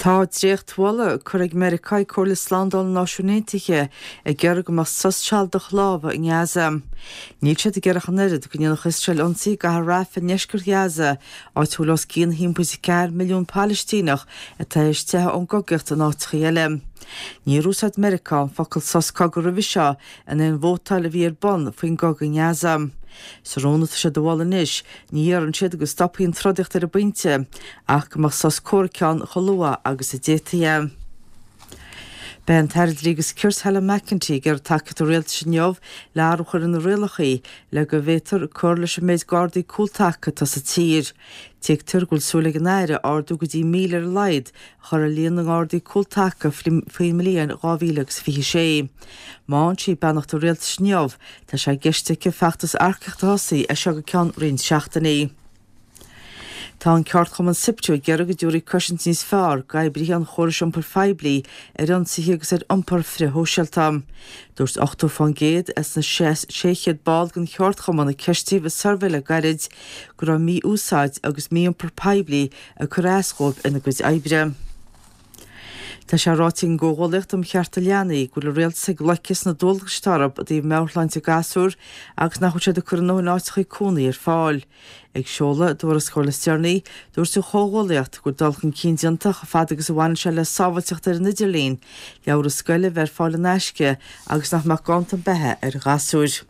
Tá dréachtmholadh curtha ag Meiriceá ag Comhairle Slándála na Náisiún Aontaithe ag iarraidh go mbeadh sos sealadach láimhe i nGaza. Níl siad ag iarraidh ach an oiread go ndéanfadh Iosrael ionsaí i gcathair Rafah i ndeisceart Ghaza, áit a bhfuil os cionn 1.4 milliún Palaistíneach atá tar éis teitheadh ón gcogaíocht in áiteacha eile. Níor úsáid Meiriceá an focal sos cogaidh roimhe seo in aon vótáil a bhí ar bun faoin gcogadh i nGaza. Sa rún atá siad a mholadh anois, ní iarrann siad go stopfaí an trodaíocht ar an bpointe, ach go mbeadh sos comhraic ann chomh luath agus a d'fhéadfaí é. Beidh an tAire Dlí agus Cirt Helen McEntee ag iarraidh tacaíocht an Rialtais inniu le athrú a chur ar na rialacha le go bhféadfar cur leis an méid Gardaí cúltaca atá sa tír. Tuigtear go bhfuil súil ag an Aire ardú go dtí 1,000 ar a laghad a chur ar líon na nGardaí cúltaca faoin mbliain 2026. Má fhaigheann sí beannacht an Rialtais inniu, tá sé i gceist aici feachtas earcaíochta a thosaí as seo go ceann roinnt seachtainí. Tá an ceardchumann Siptu ag iarraidh go dtabharfaí cosaint níos fearr d'oibrithe an chórais iompair phoiblí ar ionsaithe agus ar iompar frithshóisialta. Dúirt 80% as na 600 ball den cheardchumann a ceistíodh i suirbhé le gairid go raibh mí-úsáid agus mí-iompar poiblí ag cur as dhóibh ina gcuid oibre. Tá sé ráite ag an gComhghuallaíocht um Chearta Leanaí go bhfuil an Rialtas ag loiceadh sna dualgais atá orthu i dtaobh meabhairshláinte gasúr agus nach bhfuil siad ag cur a ndóthain áiteacha cónaí ar fáil. Ag seoladh a dtuarascáil is deireanaí, dúirt an Chomhghuallaíocht go bhfuil dul chun cinn déanta chomh fada agus a bhaineann sé le sábháilteacht ar an idirlíon, leabhra scoile a bheith ar fáil in aisce agus nach mbeadh ganntan beatha ar ghasúir.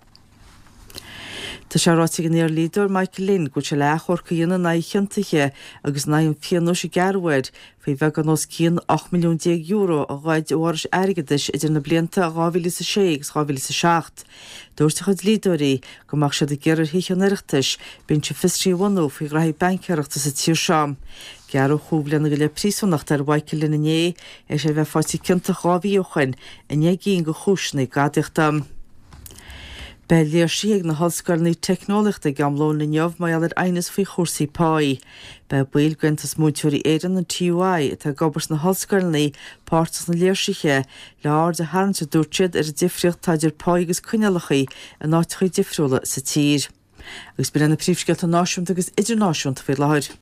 Tá sé ráite ag an iardhlíodóir Michael Lynn go bhfuil sé le achomharc a dhéanamh in aghaidh a chiontaithe agus in aghaidh an phionóis a gearradh air faoi bheagán os cionn €18 milliún a ghoid ó fhorais airgeadais idir na blianta 2006 agus 2007. Dúirt a chuid dlíodóirí go mbeadh siad ag iarraidh ar Thithe an Oireachtais binse fiosraithe a bhunú faoi ghraithí baincéireachta sa tír seo. Gearradh chúig bhliana go leith príosúnachta ar Mhichael Lynn inné, théis é a bheith faighte ciontach 2 mhí ó shoin i ndeich gcinn de chúiseanna gadaíochta. Beidh léirsithe ag na hollscoileanna teicneolaíochta ag am lóin inniu mar gheall ar aighneas faoi chúrsaí páí. Beidh baill d'Aontas Múinteoirí Éireann, an TUI, atá ag obair sna hollscoileanna, páirteach sna léirsithe, le aird a tharraingt, a dúirt siad, ar an difríocht atá idir pá agus coinníollacha in áiteacha difriúla sa tír. Agus b'in iad na príomhscéalta náisiúnta agus idirnáisiúnta faoi láthair.